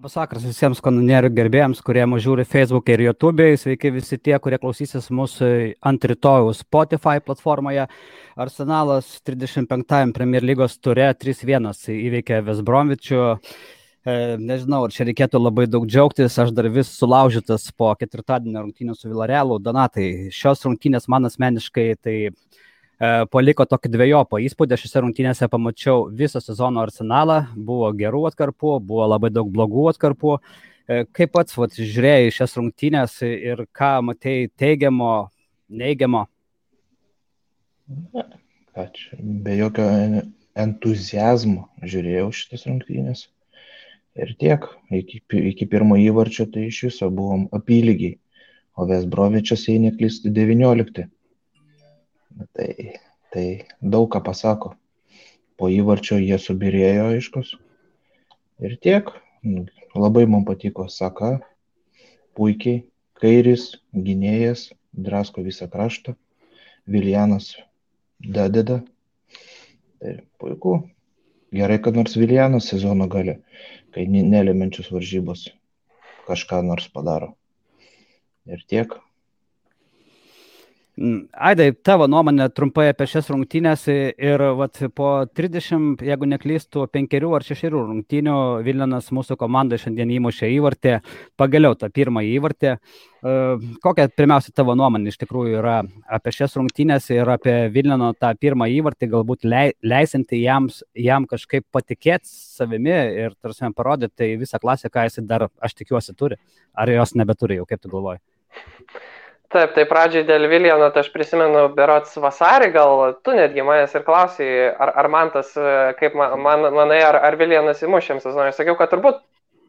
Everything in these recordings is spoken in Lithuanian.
Labas vakaras visiems kanonierių gerbėjams, kurie mus žiūri Facebook ir YouTube. Sveiki visi tie, kurie klausysis mūsų ant rytojų Spotify platformoje. Arsenalas 35-ąjam Premier lygos ture 3-1 įveikė West Bromwich'ų. Nežinau, ar čia reikėtų labai daug džiaugtis, aš dar vis sulaužytas po ketvirtadienio rungtynių su Villarealu. Donatai, šios rungtynės man asmeniškai tai paliko tokį dvejopą įspūdį. Šiose rungtynėse pamačiau visą sezono Arsenalą, buvo gerų atkarpų, buvo labai daug blogų atkarpų. Kaip pats žiūrėjai šias rungtynės ir ką matei teigiamo, neigiamo? Be jokio entuziazmo žiūrėjau šitas rungtynės. Ir tiek, iki pirmo įvarčio tai iš viso buvom apylygiai, o West Bromwich'as, jei neklystu, 19. Tai daug ką pasako. Po įvarčio jie subirėjo aiškus. Ir tiek. Labai man patiko Saka. Puikiai. Kairis, gynėjas, drasko visą kraštą. Viljanas dadeda. Tai puiku. Gerai, kad nors Viljanas sezono gale, kai nelemiančius varžybos kažką nors padaro. Ir tiek. Aidai, tavo nuomonė trumpai apie šias rungtynės ir po 30, jeigu neklystų, 5 ar 6 rungtynių Viljanas mūsų komandai šiandien įmušė įvartį, pagaliau tą pirmąjį įvartį. Kokia pirmiausia tavo nuomonė iš tikrųjų yra apie šias rungtynės ir apie Viljano tą pirmąjį įvartį, galbūt leisinti jam kažkaip patikėti savimi ir tarsi parodyti tai visą klasę, ką jis dar, aš tikiuosi, turi. Ar jos nebeturi jau, kaip tu galvoji? Taip, tai pradžiai dėl Viljano, tai aš prisimenu berods vasarį, gal tu netgi manęs ir klausai, ar man tas, kaip manai, ar Viljanas įmuš šiam sezonui. Aš sakiau, kad turbūt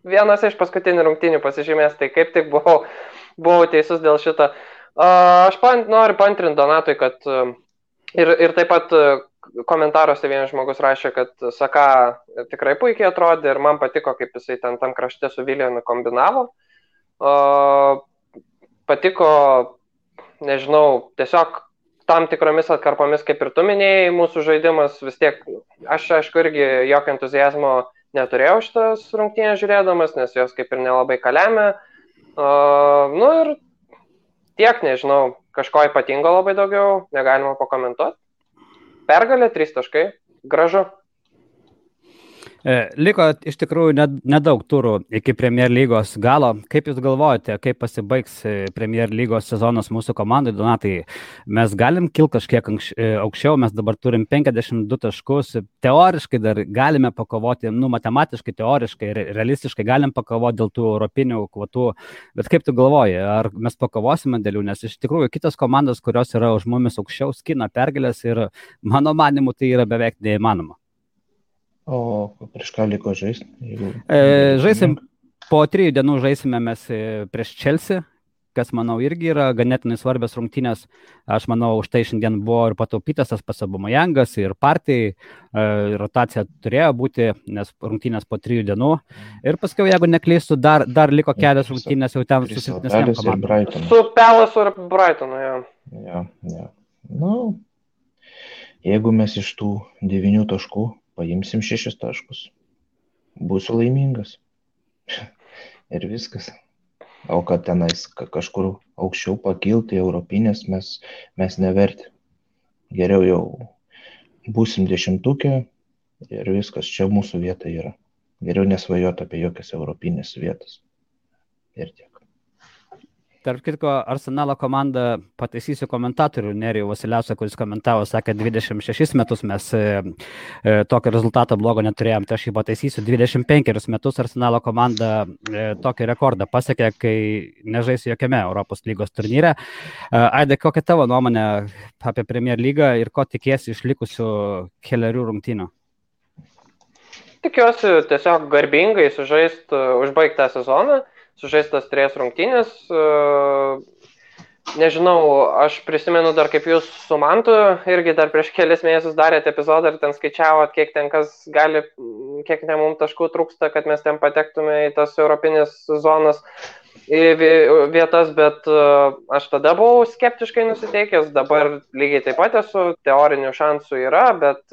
vienas iš paskutinių rungtynių pasižymės, tai kaip tik buvau teisus dėl šito. Aš noriu paantrinti Donatui, kad ir taip pat komentaruose vienas žmogus rašė, kad Saka tikrai puikiai atrodė ir man patiko, kaip jisai tam krašte su Viljanu kombinavo. Patiko, nežinau, tiesiog tam tikromis atkarpomis, kaip ir tu minėjai, mūsų žaidimas vis tiek, aš aišku irgi jokio entuziazmo neturėjau šitas rungtynės žiūrėdamas, nes jos kaip ir nelabai kalėmė. Ir tiek, nežinau, kažko ypatingo labai daugiau, negalima pakomentuoti. Pergalė, 3 taškai, gražu. Liko iš tikrųjų nedaug turų iki Premier lygos galo. Kaip jūs galvojate, kaip pasibaigs Premier lygos sezonas mūsų komandai? Donatai, mes galim kilti kažkiek aukščiau, mes dabar turim 52 taškus, teoriškai dar galime pakovoti, matematiškai, teoriškai, realistiškai galim pakovoti dėl tų europinių kvotų, bet kaip tu galvoji, ar mes pakovosime dėl jų, nes iš tikrųjų kitos komandos, kurios yra už mumis aukščiau, skina pergalės ir mano manimu tai yra beveik neįmanoma. O prieš ką liko žaisti? Žaisim, po 3 dienų žaisime mes prieš Chelsea, kas, manau, irgi yra ganėtinai svarbios rungtynės. Aš manau, už tai šiandien buvo ir pataupytas tas pats Aubameyangas ir Partey. Rotacija turėjo būti, nes rungtynės po 3 dienų. Ir paskui, jeigu neklystu, dar liko kelios rungtynės jau ten su silpnesnėm komandom. Su Palace ir Brightonu, jo. Jeigu mes iš tų 9 taškų paimsim 6 taškus, būsiu laimingas. Ir viskas. O kad tenais kažkur aukščiau pakilti europinės mes neverti. Geriau jau būsim 10-ukė ir viskas, čia mūsų vieta yra. Geriau nesvajoti apie jokias europinės vietas. Ir tiek. Tarp kitko, Arsenalo komanda, pataisysiu komentatorių Nerijų Vasiliausą, kuris komentavo, sakė, 26 metus mes tokio rezultato blogo neturėjom, tai aš jį pataisysiu, 25 metus Arsenalo komanda tokį rekordą pasiekė, kai nežaisi jokiame Europos lygos turnyre. Aidai, kokia tavo nuomonė apie Premier lygą ir ko tikiesi iš likusių kelerių rungtynių? Tikiuosi tiesiog garbingai užbaigti tą sezoną. Sužaistas 3 rungtynės. Nežinau, aš prisimenu dar kaip jūs su Mantu irgi dar prieš kelias mėnesius darėte epizodą ir ten skaičiavot, kiek mums taškų trūksta, kad mes ten patektume į tas europinės zonas vietas, bet aš tada buvau skeptiškai nusiteikęs, dabar lygiai taip pat esu, teorinių šansų yra, bet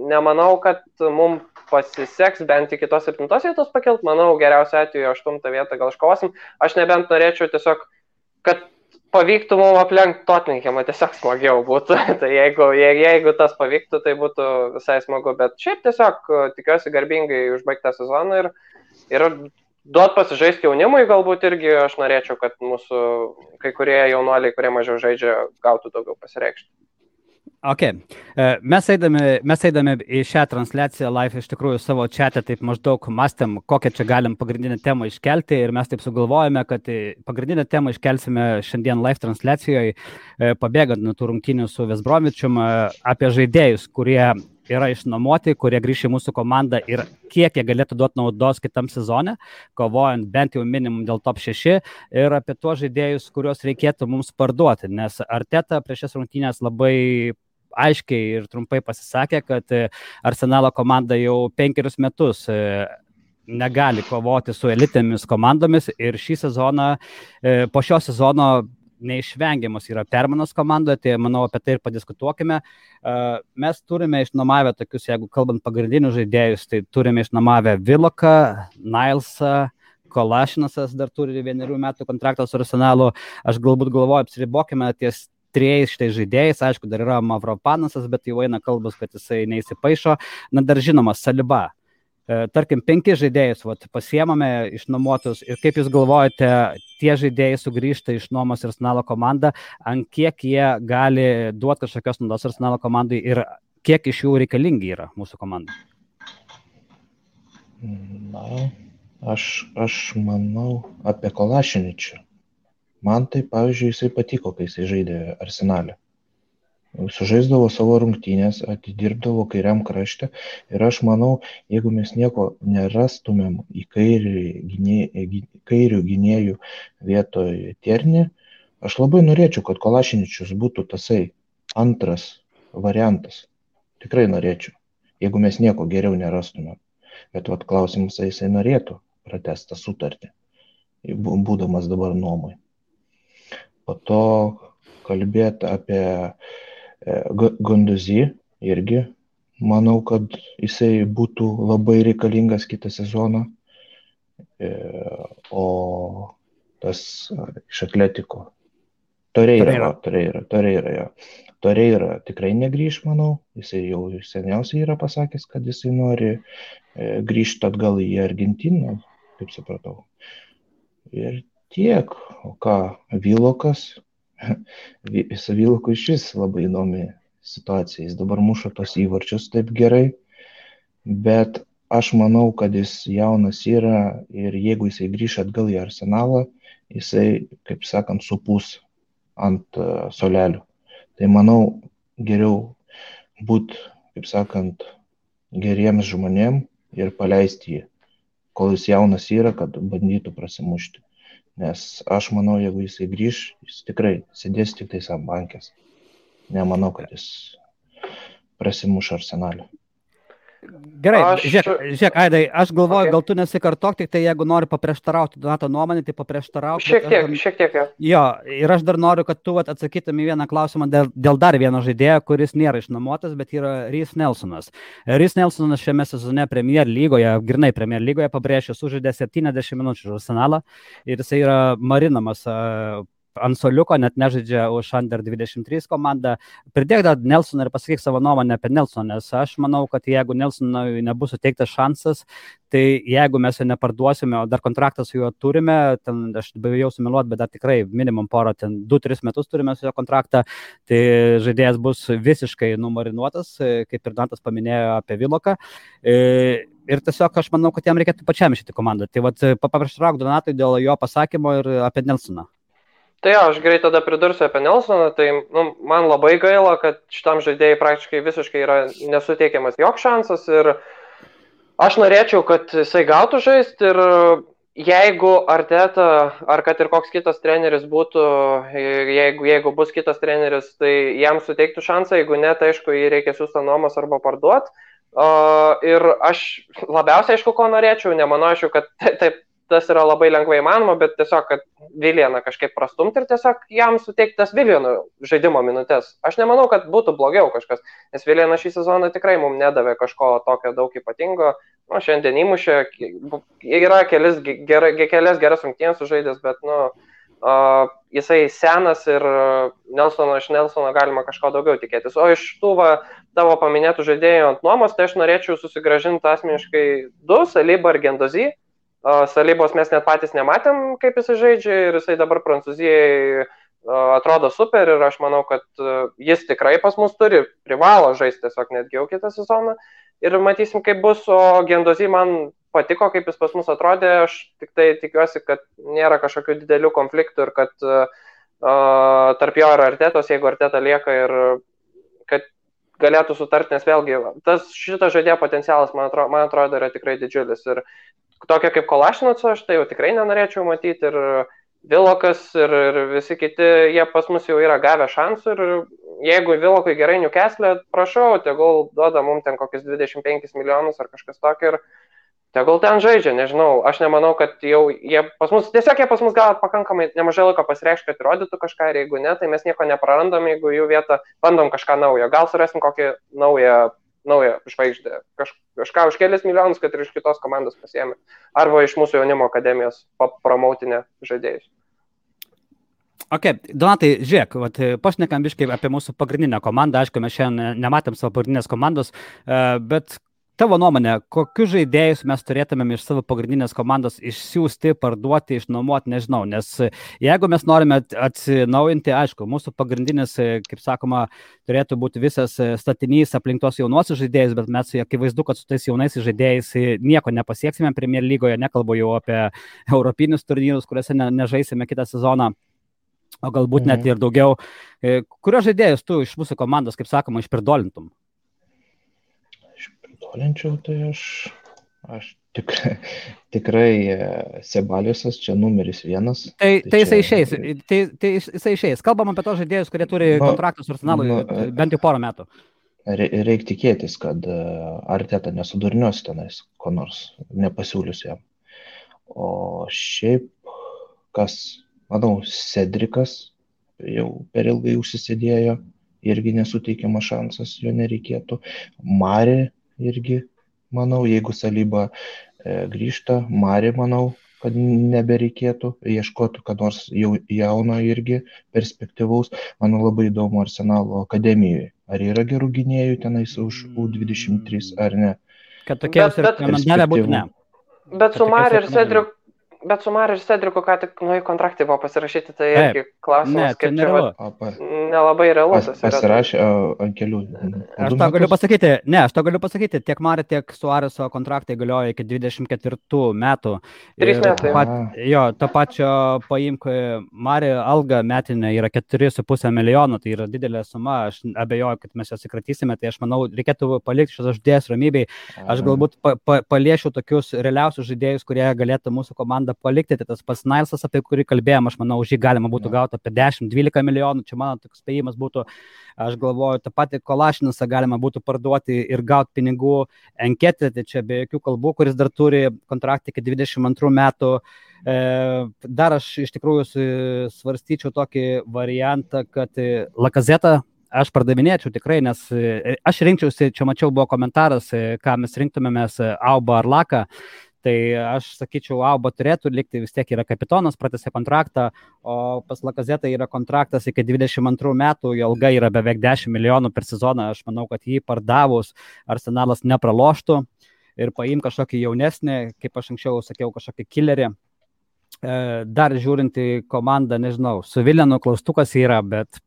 nemanau, kad mums pasiseks bent iki tos 7 vietos pakelt, manau, geriausia atveju 8 vietą gal iškovosim. Aš nebent norėčiau tiesiog, kad pavyktų mums aplenkti Tottenhamą, tiesiog smagiau būtų. Tai jeigu tas pavyktų, tai būtų visai smagu. Bet šiaip tiesiog tikiuosi garbingai užbaigti tą sezoną ir duot pasižaisti jaunimui galbūt irgi aš norėčiau, kad mūsų kai kurie jaunuoliai, kurie mažiau žaidžia, gautų daugiau pasireikšti. Ok, mes eidami į šią transliaciją live iš tikrųjų savo chat'e taip maždaug mąstėm, kokią čia galim pagrindinę temą iškelti ir mes taip sugalvojame, kad pagrindinę temą iškelsime šiandien live transliacijoje, pabėgant nuo tų rungtynių su West Bromwichum, apie žaidėjus, kurie yra išnuomoti, kurie grįš į mūsų komandą ir kiek jie galėtų duoti naudos kitam sezone, kovojant bent jau minimum dėl top 6 ir apie tuos žaidėjus, kuriuos reikėtų mums parduoti, nes Arteta prieš šias rungtynės labai aiškiai ir trumpai pasisakė, kad Arsenalo komanda jau 5 metus negali kovoti su elitėmis komandomis ir šį sezoną, po šio sezono neišvengiamas yra permainos komandoje, tai manau apie tai ir padiskutuokime. Mes turime išnuomavę tokius, jeigu kalbant pagrindinius žaidėjus, tai turime išnuomavę Willoką, Nilesą, Kolašinasas dar turi 1 metų kontraktą su Arsenalu. Aš galbūt galvoju, apsiribokime ties 3 šitais žaidėjais, aišku, dar yra Mavropanasas, bet jau eina kalbas, kad jisai neįsipaišo. Na, dar žinoma, Saliba. Tarkim, 5 žaidėjus pasiemame išnuomotus ir kaip jūs galvojate, tie žaidėjai sugrįžta iš nuomos Arsenalo komandą, ant kiek jie gali duoti kažkokios naudos Arsenalo komandai ir kiek iš jų reikalingi yra mūsų komandai? Na, aš manau apie Kolašiničių. Man tai, pavyzdžiui, jisai patiko, kai jisai žaidė Arsenale. Sužaisdavo savo rungtynės, atidirbdavo kairiam krašte ir aš manau, jeigu mes nieko nerastumėm į kairių gynėjų vietoj Tiernį, aš labai norėčiau, kad Kolašiničius būtų tasai antras variantas. Tikrai norėčiau, jeigu mes nieko geriau nerastumėm. Bet klausimas, jisai norėtų pratęsti sutartį, būdamas dabar nuomai. Po to kalbėti apie Guendouzi irgi, manau, kad jisai būtų labai reikalingas kitą sezoną, o tas iš Atletiko Torreira tikrai negrįž, manau, jisai jau seniausiai yra pasakęs, kad jisai nori grįžti atgal į Argentiną, kaip supratau. Ir tiek, o ką, Willokas, su Willoku iš vis labai įdomi situacija, jis dabar muša tos įvarčius taip gerai, bet aš manau, kad jis jaunas yra ir jeigu jisai grįš atgal į Arsenalą, jisai, kaip sakant, supūs ant solelių. Tai manau, geriau būti, kaip sakant, geriems žmonėm ir paleisti jį, kol jis jaunas yra, kad bandytų prasimušti. Nes aš manau, jeigu jisai grįž, jis tikrai sėdės tik tais ant bankės. Nemanau, kad jis prasimuš Arsenalį. Gerai, žiūrėk, Aidai, aš galvoju, gal tu nesikartok, tik tai jeigu nori paprieštarauti Donato nuomonę, tai paprieštarauti. Šiek tiek. Jo, ir aš dar noriu, kad tu atsakytum į vieną klausimą dėl dar vieno žaidėjo, kuris nėra išnuomotas, bet yra Reiss Nelsonas. Reiss Nelsonas šiame sezone Premier lygoje, grynai Premier lygoje pabrėžė, sužaidė 70 minučių už Arsenalą ir jisai yra marinamas ant soliuko, net nežaidžia už Under 23 komandą. Pridėk dar Nelsoną ir pasakyk savo nuomonę apie Nelsoną, nes aš manau, kad jeigu Nelsonui nebus suteiktas šansas, tai jeigu mes jo neparduosime, o dar kontraktą su juo turime, ten aš bijau sumeluoti, bet dar tikrai minimum porą, ten 2-3 metus turime su jo kontraktą, tai žaidėjas bus visiškai numarinuotas, kaip ir Dantas paminėjo apie Willoką. Ir tiesiog aš manau, kad jam reikėtų pačiam išėti komandą. Tai paprieštrauk Donatui dėl jo pasakymo ir apie Nelsoną. Tai aš greit tada pridursiu apie Nelsoną, tai man labai gaila, kad šitam žaidėjai praktiškai visiškai yra nesuteikiamas joks šansas ir aš norėčiau, kad jisai gautų žaisti ir jeigu Arteta ar kad ir koks kitas treneris būtų, jeigu bus kitas treneris, tai jam suteiktų šansą, jeigu ne, tai aišku, jį reikia siųsti nuomos arba parduoti. Ir aš labiausiai aišku, ko norėčiau, nemanau, aišku, kad taip tas yra labai lengvai įmanoma, bet tiesiog, kad Viljaną kažkaip prastumti ir tiesiog jam suteikti tas Viljanų žaidimo minutės. Aš nemanau, kad būtų blogiau kažkas, nes Viljanas šį sezoną tikrai mums nedavė kažko tokio daug ypatingo. Nu, šiandien įmušė, yra kelias geras rungtynės sužaidęs, bet, jisai senas ir iš Nelsono galima kažko daugiau tikėtis. O iš tų tavo paminėtų žaidėjų ant nuomos, tai aš norėčiau susigražinti asmeniškai 2, Saliba ir Gendozy. Salibos mes net patys nematėm, kaip jisai žaidžia ir jisai dabar Prancūzijai atrodo super ir aš manau, kad jis tikrai pas mus privalo žaisti tiesiog netgi jau kitą sezoną ir matysim, kaip bus, o Gendozy man patiko, kaip jis pas mus atrodė, aš tik tai tikiuosi, kad nėra kažkokių didelių konfliktų ir kad tarp jo ir Artetos, jeigu Arteta lieka ir kad galėtų sutarti, nes vėlgi šitas žaidėjo potencialas, man atrodo, yra tikrai didžiulis ir tokia kaip Kolašinaco, aš tai jau tikrai nenorėčiau matyti ir Vilokas ir visi kiti, jie pas mus jau yra gavę šansų ir jeigu Vilokui gerai Newcastle, prašau, tegul duoda mums ten kokius 25 milijonus ar kažkas tokio ir tegul ten žaidžia, nežinau, aš nemanau, kad jau jie pas mus gal pakankamai nemažai laiko pasireikšti, kad įrodytų kažką ir jeigu ne, tai mes nieko neprarandam, jeigu jų vietą bandom kažką naujo, gal surasim kokį naują žvaigždę, kažką už kelias milijonus, kad ir iš kitos komandos pasiėmė, arba iš mūsų jaunimo akademijos promautinę žaidėjus. Ok, Donatai, žiūrėk, pašnekam biškai apie mūsų pagrindinę komandą, aišku, mes šiandien nematėm savo pagrindinės komandos, bet tavo nuomonė, kokius žaidėjus mes turėtumėm iš savo pagrindinės komandos išsiųsti, parduoti, išnuomoti, nežinau, nes jeigu mes norime atsinaujinti, aišku, mūsų pagrindinis, kaip sakoma, turėtų būti visas statinys aplink tos jaunuosius žaidėjus, bet mes akivaizdu, kad su tais jaunais žaidėjais nieko nepasieksime Premier lygoje, nekalbu jau apie europinius turnyrus, kuriuose nežaisime kitą sezoną, o galbūt net ir daugiau. Kurios žaidėjus tu iš mūsų komandos, kaip sakoma, išpirdolintum? Išpirdolinčiau, tai aš tikrai Sebaliusas čia numeris 1. Tai jisai išeis. Kalbam apie tos žaidėjus, kurie turi kontraktus su Arsenalu bent jau porą metų. Reikia tikėtis, kad Arteta nesudurnios tenais, ko nors nepasiūlius jam. O šiaip, manau, Cedrikas jau per ilgai užsisėdėjo, irgi nesuteikiamas šansas, jo nereikėtų. Mari irgi, manau, jeigu Saliba grįžta, Mari, manau, kad nebereikėtų, ieškotų, kad nors jau jauno irgi perspektyvaus. Manau, labai įdomu Arsenalo akademijoje. Ar yra gerų gynėjų tenais už U23 ar ne? Kad tokie rekomendacija būtų ne. Bet su Mari ir Cedriku, ką tik kontraktai buvo pasirašyti, tai irgi klausimas, kaip čia nelabai realus. Pasirašė ant kelių. Aš to galiu pasakyti, tiek Mari, tiek Suareso kontraktai galioja iki 24 metų. 3 metai. To pačio paimk Mari alga metinė yra 4,5 milijonų, tai yra didelė suma, aš abejoju, kad mes jas įkratysime, tai aš manau, reikėtų palikti šios žaidėjus ramybei. Aš galbūt paliešiu tokius realiausius žaidėjus, kurie galėtų mūsų komandą palikti, tai tas pats Nilsas, apie kurį kalbėjom, aš manau, už jį galima būtų gauti apie 10-12 milijonų, čia mano toks spėjimas būtų, aš galvoju, tą patį Kolašinasą galima būtų parduoti ir gauti pinigų. Enketė, tai čia be jokių kalbų, kuris dar turi kontraktą iki 22 metų. Dar aš iš tikrųjų svarstyčiau tokį variantą, kad Lakazetą aš pardavinėčiau tikrai, nes aš rinkčiausi, čia mačiau buvo komentaras, ką mes rinktumėmės, Aubą ar Laką. Tai aš sakyčiau, Auba turėtų likti, vis tiek yra kapitonas, pratęsė kontraktą, o pas Lakazetą yra kontraktas iki 22 metų, jo alga yra beveik 10 milijonų per sezoną, aš manau, kad jį pardavus Arsenalas nepraloštų ir paim kažkokį jaunesnį, kaip aš anksčiau sakiau, kažkokį killerį. Dar žiūrint į komandą, nežinau, su Viljanu klaustukas yra, bet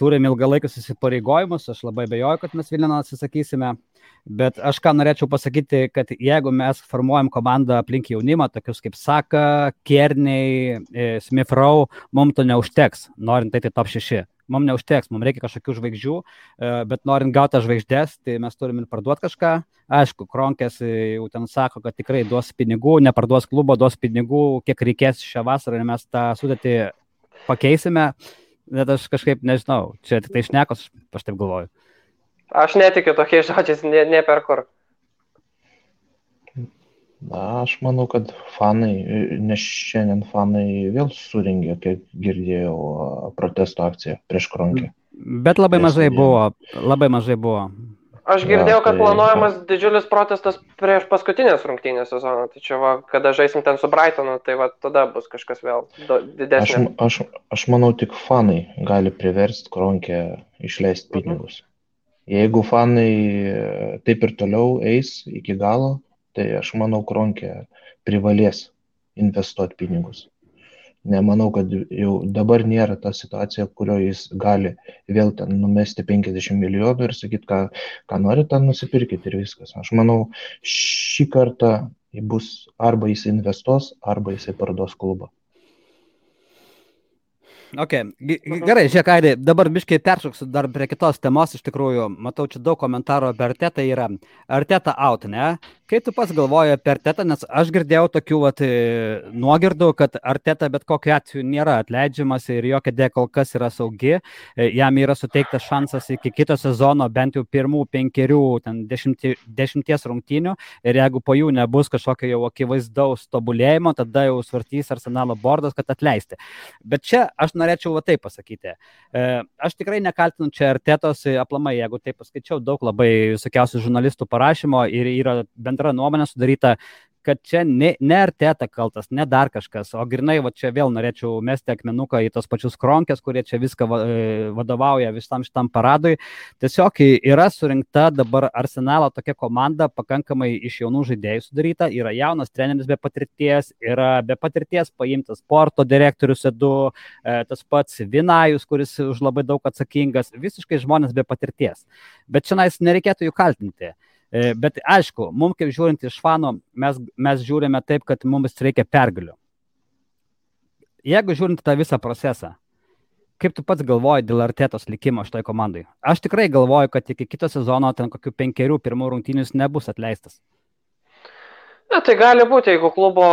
turim ilgalaikius įsipareigojimus, aš labai abejoju, kad mes Viljano atsisakysime. Bet aš ką norėčiau pasakyti, kad jeigu mes formuojam komandą aplink jaunimą, tokius kaip Saka, Kearney, Smith Rowe, mums to neužteks, norint tai top 6. Mums neužteks, mums reikia kažkokių žvaigždžių, bet norint gauti žvaigždės, tai mes turim ir parduoti kažką. Aišku, Kronkės jau ten sako, kad tikrai duos pinigų, neparduos klubo, duos pinigų, kiek reikės šią vasarą ir mes tą sudėtį pakeisime. Bet aš kažkaip nežinau, čia tik tai šnekos, aš taip galvoju. Aš netikiu tokiais žodžiais, ne per kur. Aš manau, kad fanai, nes šiandien fanai vėl suringė, kaip girdėjau, protesto akciją prieš Kronkę. Bet labai mažai buvo. Aš girdėjau, kad planuojamas didžiulis protestas prieš paskutinės rungtynės sezoną. Tai čia, kada žaisim ten su Brightonu, tai tada bus kažkas vėl didesnė. Aš manau, tik fanai gali priversti Kronkę išleisti pinigus. Jeigu fanai taip ir toliau eis iki galo, tai aš manau, Kronkė privalės investuoti pinigus. Nemanau, kad jau dabar nėra ta situacija, kurioje jis gali vėl ten numesti 50 milijonų ir sakyti, ką nori, ten nusipirkit ir viskas. Aš manau, šį kartą bus arba jis investuos, arba jisai parduos klubą. Okay. Gerai, žiūrėk, Aidai, dabar biškai peršoksiu dar prie kitos temos, iš tikrųjų, matau, čia daug komentarų apie Artetą yra. Arteta out, ne? Kaip tu pats galvoji apie Artetą, nes aš girdėjau tokių nuogirdų, kad Arteta bet kokiu atveju nėra atleidžiamas ir jo kėdė kol kas yra saugi, jam yra suteiktas šansas iki kito sezono bent jau pirmų 10 rungtynių ir jeigu po jų nebus kažkokio jau akivaizdaus tobulėjimo, tada jau svartys Arsenalo bordas, kad atleisti. Bet čia aš norėčiau taip pasakyti. Aš tikrai nekaltinu čia Artetos aplamai, jeigu taip paskaičiau, daug labai visokiausių žurnalistų parašymo ir yra bendra nuomonė sudaryta, kad čia ne Arteta kaltas, ne dar kažkas, o grinai čia vėl norėčiau mesti akmenuką į tos pačius Kronkės, kurie čia viską vadovauja visam šitam paradui. Tiesiog yra surinkta dabar Arsenalo tokia komanda, pakankamai iš jaunų žaidėjų sudaryta, yra jaunas treneris be patirties, yra be patirties paimtas sporto direktorius Edu, tas pats Vinajus, kuris už labai daug atsakingas, visiškai žmonės be patirties. Bet čia nereikėtų jų kaltinti. Bet aišku, mums kaip žiūrint iš fanų, mes žiūrime taip, kad mums reikia pergalių. Jeigu žiūrint tą visą procesą, kaip tu pats galvoji dėl Artetos likimo šitoj komandai? Aš tikrai galvoju, kad iki kito sezono ten kokių 5 pirmų rungtynių nebus atleistas. Na, tai gali būti, jeigu klubo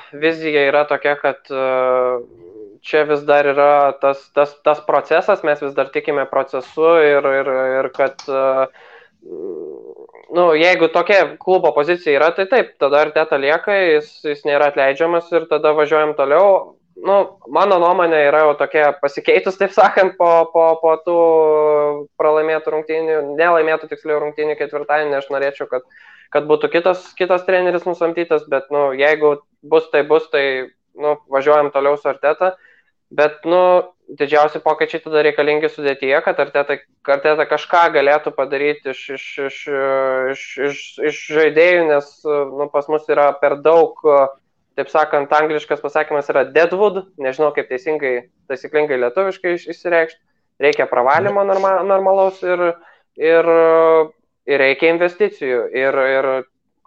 vizija yra tokia, kad čia vis dar yra tas procesas, mes vis dar tikime procesu ir kad jeigu tokia klubo pozicija yra, tai taip, tada Arteta lieka, jis nėra atleidžiamas ir tada važiuojam toliau. Mano nuomonė yra jau tokia pasikeitus, taip sakant, po tų pralaimėtų rungtynių, nelaimėtų tiksliau rungtynių ketvirtadienį, aš norėčiau, kad būtų kitas treneris nusamdytas, bet jeigu bus, tai važiuojam toliau su Arteta. Bet, didžiausi pokyčiai tada reikalingi sudėtyje, kad Arteta kažką galėtų padaryti iš žaidėjų, nes pas mus yra per daug, taip sakant, angliškas pasakymas yra deadwood, nežinau kaip taisyklingai lietuviškai išsireikšti, reikia pravalimo normalaus ir reikia investicijų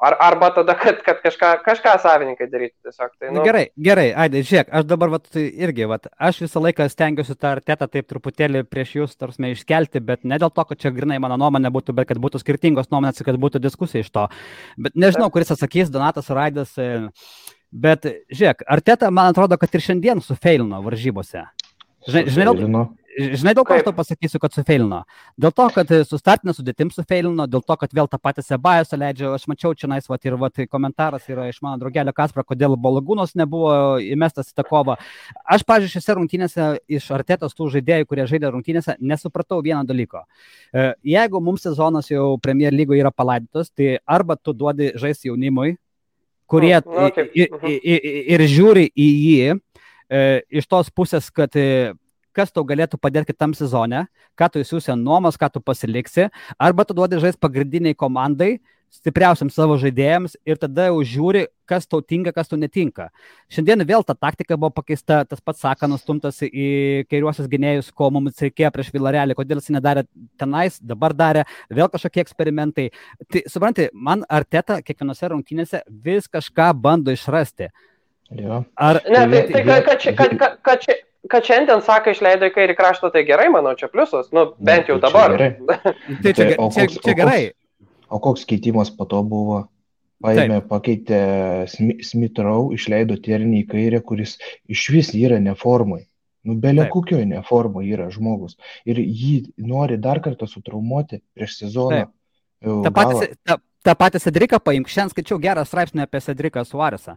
arba tada, kad kažką savininkai darytų tiesiog. Tai, Gerai, Aidai, žiūrėk, aš dabar aš visą laiką stengiuosi tą Artetą taip truputėlį prieš jūs iškelti, bet ne dėl to, kad čia grinai mano nuomonė būtų, bet kad būtų skirtingos nuomonės ir kad būtų diskusija iš to. Bet nežinau, kuris atsakys, Donatas ar Aidas, bet žiūrėk, Arteta, man atrodo, kad ir šiandien sufeilino varžybose. Žinai, dėl ko aš to pasakysiu, kad sufeilino? Dėl to, kad su startinė sudėtim sufeilino, dėl to, kad vėl tą patį Sebajosą leidžia. Aš mačiau čia komentaras yra iš mano draugelio Kasparo, kodėl Balagūnos nebuvo įmestas į tą kovą. Aš, pavyzdžiui, šiose rungtynėse iš Artetos tų žaidėjų, kurie žaidė rungtynėse, nesupratau vieno dalyko. Jeigu mums sezonas jau Premier lygoje yra palaidytos, tai arba tu duodi žaisti jaunimui, kurie ir žiūri į jį iš tos pusės, kad kas tau galėtų padėti kitam sezone, ką tu įsiūsi nuomos, ką tu pasiliksi, arba tu duodi žaisti pagrindiniai komandai, stipriausiam savo žaidėjams ir tada jau žiūri, kas tau tinka, kas tau netinka. Šiandien vėl ta taktika buvo pakeista, tas pats Saka nustumtas į kairiuosius gynėjus, ko mums reikėjo prieš Villarealį, kodėl jis nedarė tenais, dabar darė, vėl kažkokie eksperimentai. Tai, supranti, man Arteta kiekvienose rungtynėse vis kažką bando išrasti. Ja. Kad šiandien Saka išleido į kairį kraštą, tai gerai, manau, čia pliusas, bent jau dabar. Čia gerai. O koks keitimas po to buvo? Pakeitė Smith Rowe, išleido Tierney į kairę, kuris iš vis yra neformai. Belė kokioj neformai yra žmogus. Ir jį nori dar kartą sutraumuoti prieš sezoną. tą patį Cedriką paimk. Šiandien skaičiau gerą straipsnį apie Cedriką Suaresą.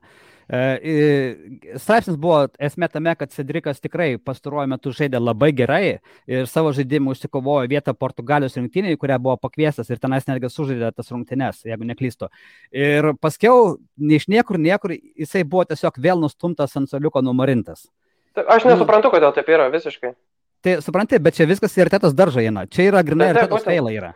Straipsnis buvo esmė tame, kad Cedrikas tikrai pastaruoju metu žaidė labai gerai ir savo žaidimu užsikovojo vietą Portugalijos rinktinėje, kurią buvo pakviestas ir tenais netgi sužaidė tas rungtynes, jeigu neklystu. Ir paskiau, iš niekur, jisai buvo tiesiog vėl nustumtas ant suoliuko numarintas. Aš nesuprantu, kodėl taip yra visiškai. Tai supranti, bet čia viskas į Artetos daržą eina. Čia yra grinai Artetos feilai yra.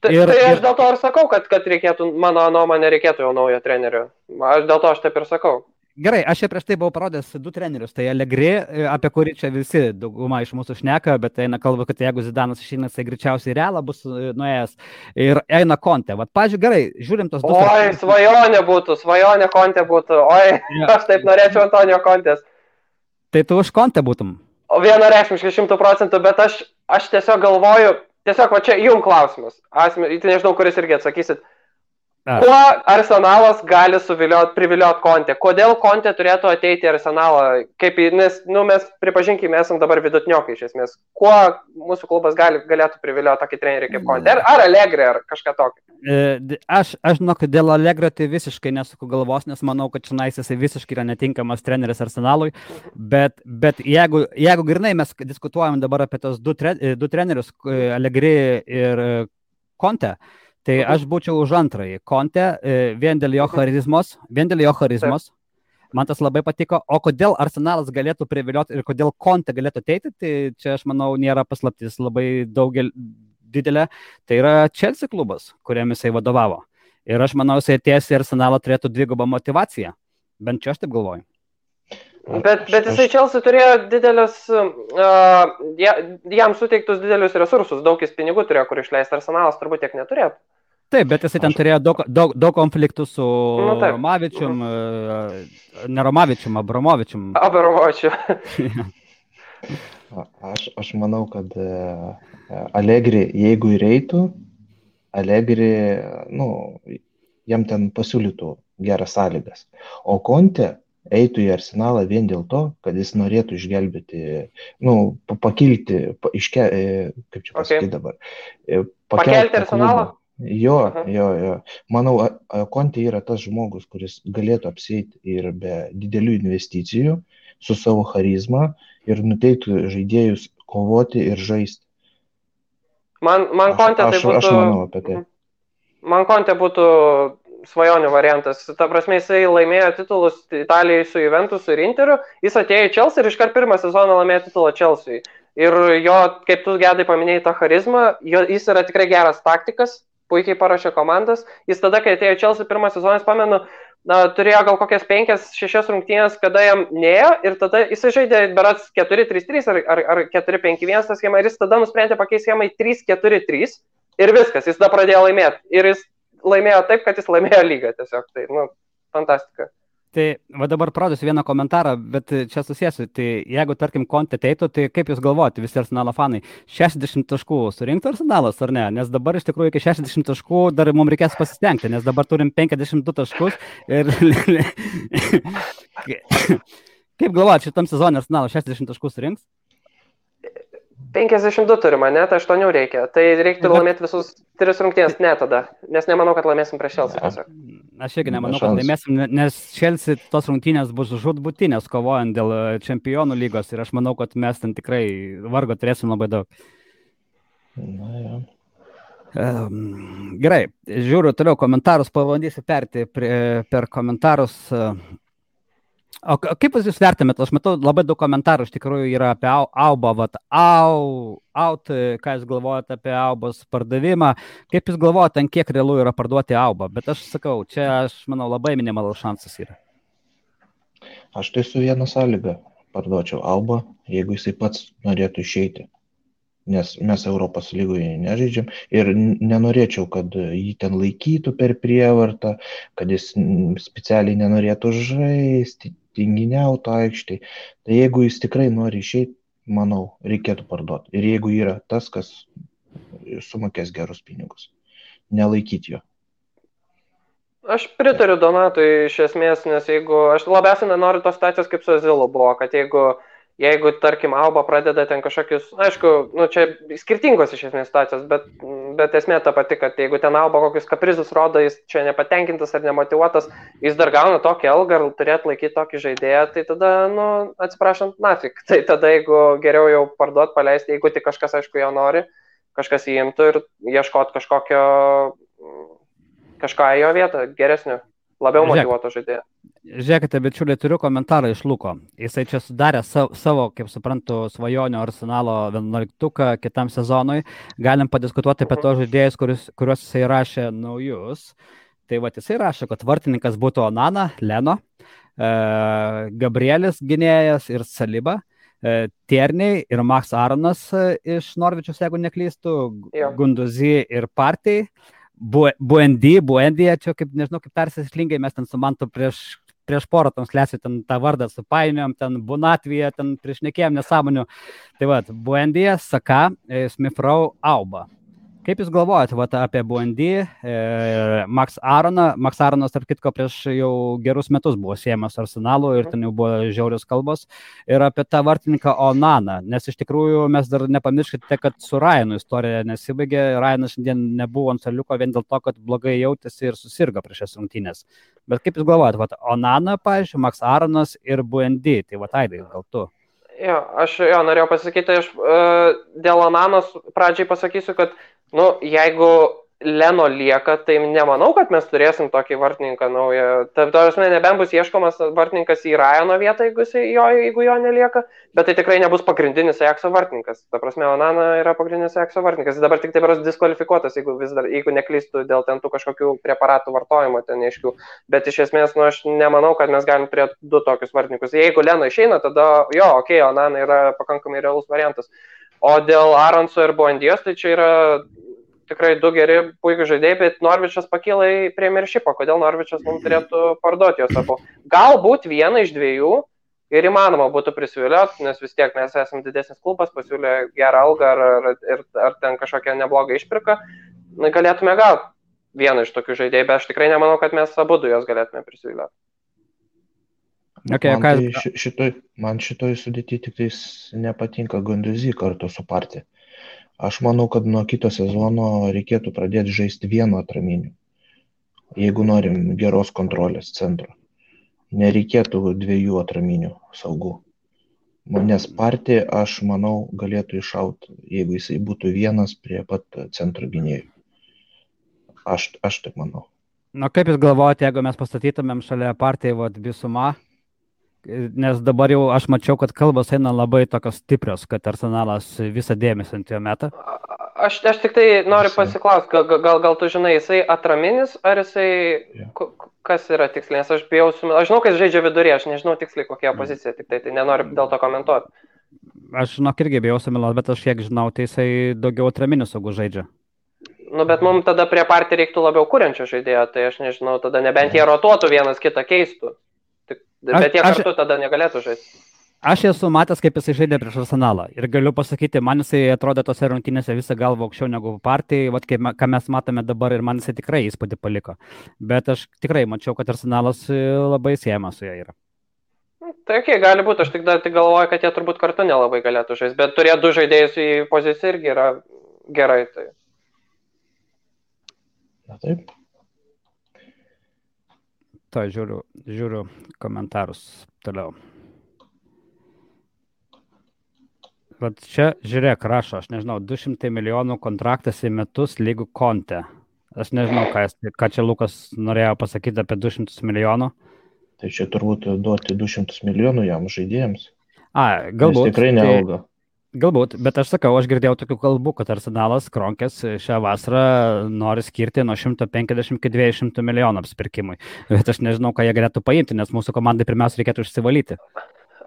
Tai aš dėl to ir sakau, kad reikėtų, mano nuomonė, reikėtų jau naujo trenerio. Dėl to aš taip ir sakau. Gerai, aš čia prieš tai buvau parodęs 2 trenerius. Tai Allegri, apie kurį čia visi dauguma iš mūsų šneka, bet eina kalba, kad jeigu Zidanas išeina, tai greičiausiai Realą bus nuėjęs. Ir eina Conte. Vat, pažiūrėjau, gerai, žiūrim tos 2. Oi, svajonė Conte būtų. Oi, ja. Aš taip norėčiau Antonio Contės. Tai tu už Conte būtum? O vienareikšmiškai 100%, bet aš tiesiog galvoju, va čia jum klausimas. Tai nežinau, kuris irgi atsakysit. Kuo Arsenalas gali privilioti Conte? Kodėl Conte turėtų ateiti į Arsenalą? Nes mes, pripažinkime, esam dabar vidutiniokai iš esmės. Kuo mūsų klubas galėtų privilioti tokį trenerį kaip Conte? Ar Allegri, ar kažką tokio? Aš žinau, kad dėl Allegri tai visiškai nesuku galvos, nes manau, kad čionais jisai visiškai yra netinkamas treneris Arsenalui. Bet jeigu grinai mes diskutuojam dabar apie tos 2 trenerius, Allegri ir Conte, tai aš būčiau už antrąjį Conte, vien dėl jo charizmos. Man tas labai patiko. O kodėl Arsenalas galėtų privilioti ir kodėl Conte galėtų ateiti, tai čia aš manau nėra paslaptis labai didelė. Tai yra Chelsea klubas, kuriam jisai vadovavo. Ir aš manau, jisai atėjęs į Arsenalą turėtų 2 motivaciją. Bent čia aš taip galvoju. Bet jisai Chelsea turėjo didelės, jam suteiktus didelius resursus, daug jis pinigų turėjo, kur išleisti. Arsenalas turbūt tiek neturėtų. Taip, bet jisai ten turėjo daug konfliktų su Romavičium, ne Romavičium, Abramovičium. Aš manau, kad Allegri, jeigu įeitų, Allegri, jam ten pasiūlytų geras sąlygas. O Conte eitų į Arsenalą vien dėl to, kad jis norėtų išgelbėti, pakilti, kaip čia pasakyti dabar. Pakelti Arsenalą? Jo. Manau, Conte yra tas žmogus, kuris galėtų apsieiti ir be didelių investicijų su savo charizma ir nuteiktų žaidėjus kovoti ir žaisti. Man Conte tai būtų... Aš manau apie tai. Man Conte būtų svajonių variantas. Ta prasme, jisai laimėjo titulus Italijai su Juventus ir Interiu, jis atėjo į Chelsea ir iškart pirmą sezoną laimėjo titulą Chelsea. Ir jo, kaip tu Gedai paminėjai tą charizmą, jis yra tikrai geras taktikas, puikiai parašė komandas. Jis tada, kai atėjo į Chelsea pirmą sezoną, pamenu, turėjo gal kokias 5-6 rungtynės, kada jam neėjo ir tada jisai žaidė berats 4-3-3 ar 4-5-1 tą schemą ir jis tada nusprendė pakeisti schemą į 3-4-3 ir viskas, jis tada pradėjo laimėti. Ir jis laimėjo taip, kad jis laimėjo lygą tiesiog. Tai, fantastika. Tai va dabar parodysiu vieną komentarą, bet čia susėsiu. Tai jeigu, tarkim, Conte ateitų, tai kaip jūs galvojate, visi Arsenalo fanai, 60 taškų surinktų Arsenalas ar ne? Nes dabar iš tikrųjų iki 60 taškų dar mums reikės pasistengti, nes dabar turim 52 taškus ir... Kaip galvojate, šitam sezonui Arsenalas 60 taškų surinks? 52 turime, net 8 reikia. Tai reiktų laimėti visus 3 rungtynės, ne tada. Nes nemanau, kad laimėsim prieš Chelsea tiesiog. Aš irgi nemanau, kad laimėsim, nes Chelsea tos rungtynės bus žūtbūtinės kovojant dėl čempionų lygos ir aš manau, kad mes ten tikrai vargo turėsim labai daug. Gerai, žiūriu toliau komentarus, pabandysiu perti per komentarus. O kaip jūs vertinate? Aš matau labai daug komentarų iš tikrųjų yra apie Aubą, ką jūs galvojate apie Aubos pardavimą, kaip jūs galvojate, ant kiek realu yra parduoti Aubą, bet aš sakau, čia aš manau labai minimalus šansas yra. Aš tai su viena sąlyga parduočiau Aubą, jeigu jisai pats norėtų išeiti, nes mes Europos lygoje nežaidžiam ir nenorėčiau, kad jį ten laikytų per prievartą, kad jis specialiai nenorėtų žaisti, tinginiautų aikštėj. Tai jeigu jis tikrai nori išeiti, manau, reikėtų parduoti. Ir jeigu yra tas, kas sumokės gerus pinigus, nelaikyti jo. Aš pritariu Donatui iš esmės, nes jeigu aš labiausiai nenoriu tos situacijos kaip su Azilu buvo, kad jeigu jeigu, tarkim, Alba pradeda ten kažkokius, aišku, nu, čia skirtingos iš esmės situacijos, bet esmė ta pati, kad jeigu ten Alba kokius kaprizus rodo, jis čia nepatenkintas ar nemotivuotas, jis dar gauna tokį algą ar turėtų laikyti tokį žaidėją, tai tada, nu, atsiprašant, nafik. Tai tada, jeigu geriau jau parduot, paleisti, jeigu tik kažkas, aišku, jo nori, kažkas įimtų ir ieškot kažką į jo vietą, geresnio, labiau motyvuoto žaidėjo. Žiūrėkite, bičiuliai, turiu komentarą iš Luko. Jisai čia sudarė savo, kaip suprantu, svajonių Arsenalo 11 kitam sezonui. Galim padiskutuoti apie tos žaidėjus, kuriuos jisai rašė naujus. Tai va, jisai rašė, kad vartininkas būtų Onana, Leno, Gabrielis gynėjas ir Saliba, Tierney ir Max Aronas iš Norvičius, jeigu neklystų, Gunduzi ir Partey. Buendy, čia kaip, nežinau, kaip persislingai, mes ten su Mantu prieš porą transliacijų ten tą vardą supainiojom, ten Bunatvija, ten priešnekėjom nesąmonių. Tai va, Buendy, Saka, Smith Rowe, Auba. Kaip jūs galvojate apie Buendy, Max Aroną? Max Aronas, tarp kitko, prieš jau gerus metus buvo siejamas Arsenalu ir ten jau buvo žiaurios kalbos. Ir apie tą vartininką Onaną, nes iš tikrųjų mes dar nepamirškite, kad su Ryanu istorija nesibaigė. Ryanas šiandien nebuvo ant suoliuko vien dėl to, kad blogai jautėsi ir susirgo prieš šias rungtynes. Bet kaip jūs galvojate, Onana, pavyzdžiui, Max Aronas ir Buendy, tai va, Aidai, gal tu? Aš norėjau pasakyti, aš dėl Onanos pradžiai pasakysiu, kad jeigu Leno lieka, tai nemanau, kad mes turėsim tokį vartininką naują. Ta prasme, nebent bus ieškomas vartininkas į Ryano vietą, jeigu jo nelieka, bet tai tikrai nebus pagrindinis Ajaxo vartininkas. Ta prasme, Onana yra pagrindinis Ajaxo vartininkas. Jis dabar tik taip yra diskvalifikuotas, jeigu neklystų dėl ten tų kažkokių preparatų vartojimo ten neaiškių. Bet iš esmės, aš nemanau, kad mes galim turėti du tokius vartininkus. Jeigu Leno išeina, tada Onana yra pakankamai realus variantas. O dėl Aronso ir Buendijos, tai čia yra tikrai du geri, puikų žaidėjai, bet Norvičas pakyla į Premiershipą. Kodėl Norvičas mums turėtų parduoti juos abu? Galbūt vieną iš dviejų ir įmanoma būtų prisivilioti, nes vis tiek mes esame didesnis klubas, pasiūlė gerą algą ar ten kažkokią neblogą išpirką. Galėtume gauti vieną iš tokių žaidėjų, bet aš tikrai nemanau, kad mes abu du juos galėtume prisivilioti. Okay, man šitoj sudėti tik tais nepatinka Gunduzi kartu su Partey. Aš manau, kad nuo kito sezono reikėtų pradėti žaisti vienu atraminiu, jeigu norim geros kontrolės centro. Nereikėtų dviejų atraminių saugų. Nes Partey, aš manau, galėtų iššauti, jeigu jisai būtų vienas prie pat centro gynėjų. Aš taip manau. Kaip jūs galvojate, jeigu mes pastatytumėm šalia Partey Bisuma? Nes dabar jau aš mačiau, kad kalbos eina labai tokios stiprios, kad Arsenalas visą dėmesį ant jo metą. Aš tik tai noriu pasiklausti, gal tu žinai, jisai atraminis, ar jisai, kas yra tiksliai, nes aš žinau, kad jis žaidžia vidurį, aš nežinau tiksliai kokia pozicija, tik tai nenoriu dėl to komentuoti. Aš irgi bijau sumiluoti, bet aš kiek žinau, tai jisai daugiau atraminių saugų žaidžia. Bet mums tada prie Partey reiktų labiau kuriančio žaidėjo, tai aš nežinau, tada nebent jie rotuotų vienas kitą keistų. Bet jie kartu tada negalėtų žaisti. Aš esu matęs, kaip jisai žaidė prieš Arsenalą. Ir galiu pasakyti, man jisai atrodė tose rungtynėse visą galvą aukščiau negu Partey, ką mes matome dabar, ir man jisai tikrai įspūdį paliko. Bet aš tikrai mačiau, kad Arsenalas labai siejamas su juo yra. Tai gali būti, aš tik galvoju, kad jie turbūt kartu nelabai galėtų žaisti. Bet turėti du žaidėjus į poziciją irgi yra gerai. Tai. Na taip. Žiūriu komentarus toliau. Vat čia, žiūrėk, rašo, aš nežinau, 200 milijonų kontraktas į metus lygų Conte. Aš nežinau, ką čia Lukas norėjo pasakyti apie 200 milijonų. Tai čia turbūt duoti 200 milijonų jam žaidėjams. Galbūt. Jis tikrai neauga. Galbūt, bet aš sakau, aš girdėjau tokių kalbų, kad Arsenalas Kronkės šią vasarą nori skirti nuo 150 iki 200 milijonų apsipirkimui. Bet aš nežinau, ką jie galėtų paimti, nes mūsų komandai pirmiausia reikėtų išsivalyti.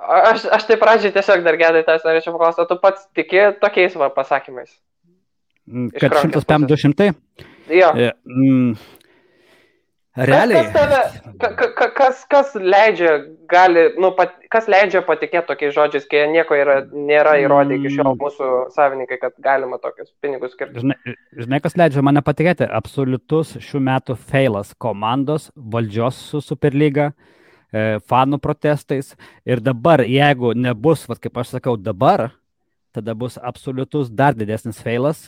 Aš tai pradžiai tiesiog dar gedai tas norėčiau paklausti, tu pats tiki tokiais pasakymais? Kad 150-200? Jo. Realiai. Kas leidžia patikėti tokiais žodžiais, kai nieko nėra įrodę iki šiol mūsų savininkai, kad galima tokius pinigus skirti? Žinai, kas leidžia mane patikėti? Absoliutus šių metų feilas komandos, valdžios su Superlyga, fanų protestais. Ir dabar, jeigu nebus, kaip aš sakau, dabar, tada bus absoliutus dar didesnis feilas,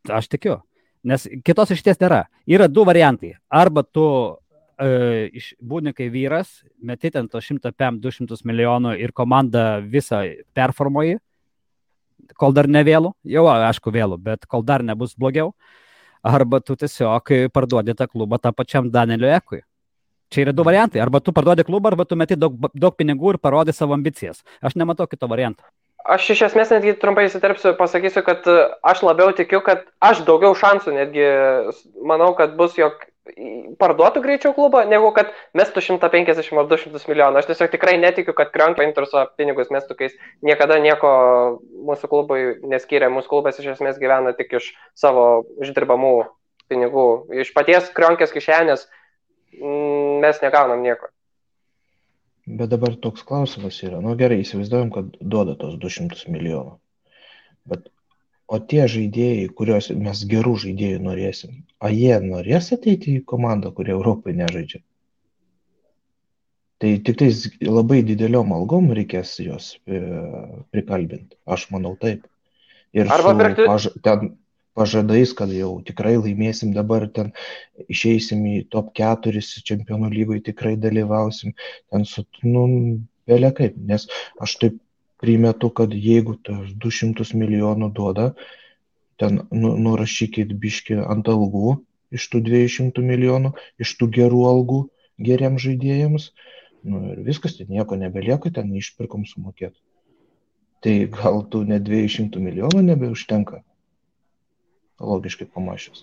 aš tikiu. Nes kitos išties nėra. Yra du variantai. Arba tu būni kai vyras, meti ten to 100-200 milijonų ir komandą visą performuoji, kol dar ne vėlų, jau aišku vėlų, bet kol dar nebus blogiau, arba tu tiesiog parduodi tą klubą tą pačiam Danieliu Ekui. Čia yra du variantai. Arba tu parduodi klubą, arba tu meti daug pinigų ir parodai savo ambicijas. Aš nematau kito varianto. Aš iš esmės netgi trumpai įsiterpsiu, pasakysiu, kad aš labiau tikiu, kad aš daugiau šansų netgi manau, kad bus, jog parduotų greičiau klubą, negu kad mestų 150 ar 200 milijonų. Aš tiesiog tikrai netikiu, kad Krionk paimtų savo pinigus mestų, kai niekada nieko mūsų klubui neskyrė. Mūsų klubas iš esmės gyvena tik iš savo uždirbamų pinigų. Iš paties Krionkės kišenės mes negaunam nieko. Bet dabar toks klausimas yra. Nu gerai, įsivaizduojam, kad duoda tos 200 milijonų. O tie žaidėjai, kuriuos mes gerų žaidėjų norėsim, jie norės ateiti į komandą, kurie Europai nežaidžia? Tai tik tais labai dideliom algom reikės juos prikalbinti. Aš manau taip. Ir su ten pažadais, kad jau tikrai laimėsim dabar, ten išeisim į top 4 čempionų lygoje, tikrai dalyvausim. Ten vėlia kaip, nes aš taip primetu, kad jeigu tas 200 milijonų duoda, ten nurašykit biškį ant algų iš tų 200 milijonų, iš tų gerų algų geriems žaidėjams, ir viskas, ten nieko nebelieka, ten išpirkom sumokėti. Tai gal tų net 200 milijonų nebeužtenka, logiškai pamačius.